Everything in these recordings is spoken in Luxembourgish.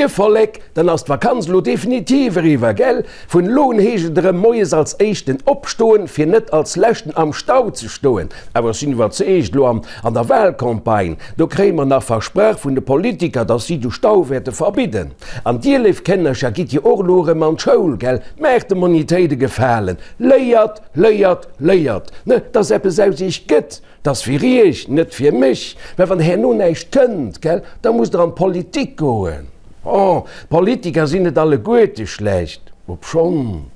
Moie Vollek, dann ass d'Vakanz elo definitiv eriwwer, gell? Vun elo un heescht et erëm moies als éischten opstoen, fir net als leschten am Stau ze stoen. Awer ech sinn iwwerzeegt, elo an an der Wahlcampagne, do kréie mer nach versprach vun de Politiker, dass si de Stau wäerte verbidden. An dir, léif Kënnercher, gitt jo och elo erëm an d'Schoul, gell? Maacht de Monitéit e Gefalen, léiert, léiert, léiert, ne, dass eppes aus iech gëtt! 't ass fir iech, net fir mech. Mä wann herno näischt kënnt, gell, da musst der an d'Politik goen. Oh, d'Politiker sinn net alleguerte schlecht, obschonn.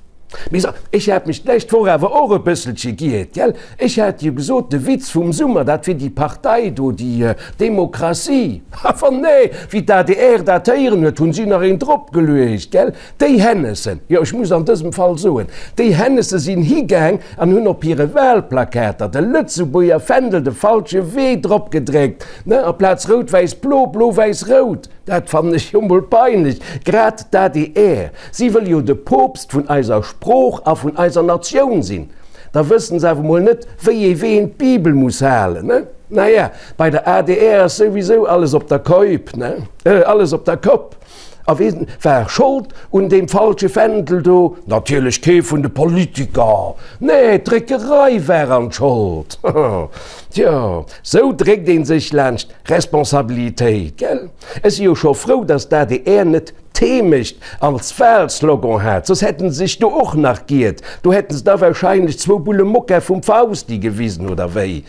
Mee so, ech hat mech d'lescht Woch awer och e bësselche giert, gell. Ech hat jo gesot, de Witz vum Summer, dat wier déi Partei do, déi Demokratie. Awer nee, wéi d'ADR dat héieren huet, hunn si nach een dropgeluecht, gell. Déi Hennessen, jo ech muss an dësem Fall soen, déi Hennesse sinn higaang an hunn op hire Wahlplakater de Lëtzebuerger Fändel de falsche Wee drop gedréckt, ne, aplaz rout-wäiss-blo, blo-wäiss-rout. Dat fannen ech jo mol peinlech. Grad d'ADR, si wëll jo de Poopst vun eiser Sprooch a vun eiser Natioun sinn, da wëssen se awer mol net, wéi ee Ween d'Bibel muss halen, ne? Naja, bei der adr ass souwisou alles op der Koip, ne, alles op der Kopp. A wien war Schold un deem falsche Fändel do? Natierlech kee vun de Politiker, nee, d'Dréckerei war an d'Schold. Tjo, sou dréckt een sech laanscht Responsabilitéit, gell? Ech si jo scho frou, datt d'ADR net d'Heemecht als Wahlslogan hat, soss hätten se sech do och nach giert. Do hätten se da wahrscheinlech zwou Bulle Mokka vum Fausti gewisen, oder wéi?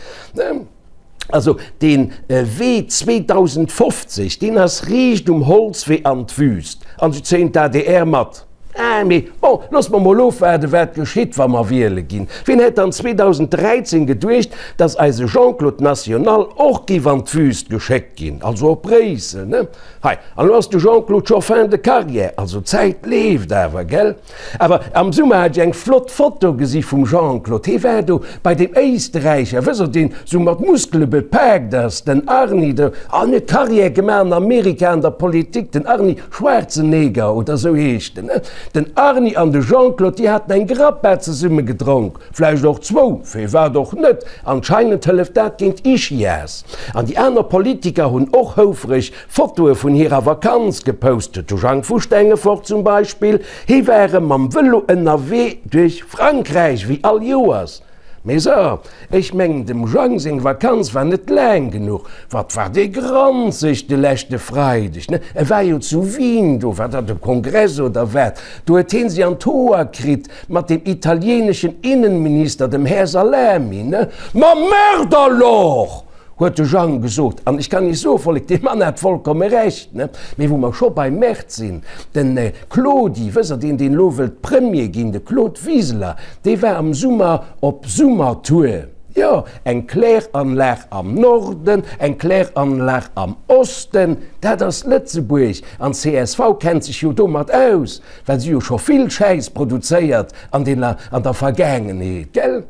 Also dee Wee 2050, deen ass riicht um Holzwee an d'Wüst. An se zéien d'ADR mat. Ah, mee bon, loosse mer mol ofwaarden, wat geschitt, wa mer wiele ginn. Wien hätt dann 2013 geduecht, datt eise Jean-Claude National och géif an d'Wüst geschéckt ginn, also op Bréissel, ne? Hei, an elo ass de Jean-Claude scho fin de carrière, also d'Zäit leeft awer, gell? Awer am Summer hat ech eng flott Foto gesi vum Jean-Claude. Hee war do bei deem Éisterräicher, wësst der, deen sou mat Muskele bepaakt ass, den Arni do, an huet Carrière gemaach an Amerika an der Politik, den Arni Schwarzenegger oder sou heescht en. Den Arni an de Jean-Claude, déi haten eng Grappa zesumme gedronk, vläicht och zwou, firwat och net, anscheinend hëlleft dat géint Ischias. An déi aner Politiker hunn och houfreg Fotoe vun hirer Vakanz gepost, de Jang vu Stengefort zum Beispill, hie war erëm mam Vëlo ënnerwee duerch Frankräich, wéi all Joers. Mee so, ech mengen dem Jang seng Vakanz war net laang genuch. Wat war dee granzeg de leschte Freideg, ne? E war jo zu Wien, do war dat e Kongress oder wat, do huet hien si an d'Hoer kritt mat dem italieneschen Innenminister, dem Här Salami, ne? Ma merde alors! Huet de Jang gesot. An ech kann Iech soe Vollek, dee Mann hat vollkomme Recht. Ne? Mee wou mer scho beim Mäert sinn, den Claudi, wësst Der, deen, deen elo wëllt Premier ginn, de Claude Wiseler, dee war am Summer op Summertour. Jo, eng Kläranlag am Norden, eng Kläranlag am Osten, dat ass Lëtzebuerg. An csv kennt sech jo domat aus, well si jo scho vill Schäiss produzéiert an dener, an der Vergaangenheet, gell?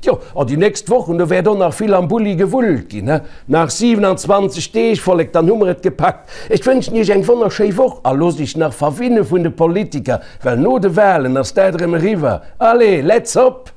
Tjo, an déi nächst Wochen, do wäert och nach vill am Bulli gewullt ginn, he? Nach 27 Deeg, Vollek, dann hu mer et gepackt. Ech wënschen Iech eng wonnerschéi Woch a loosst Iech nach verwinne vun de Politiker, well no de Walen ass dat erëm eriwwer. Allez, let's hop!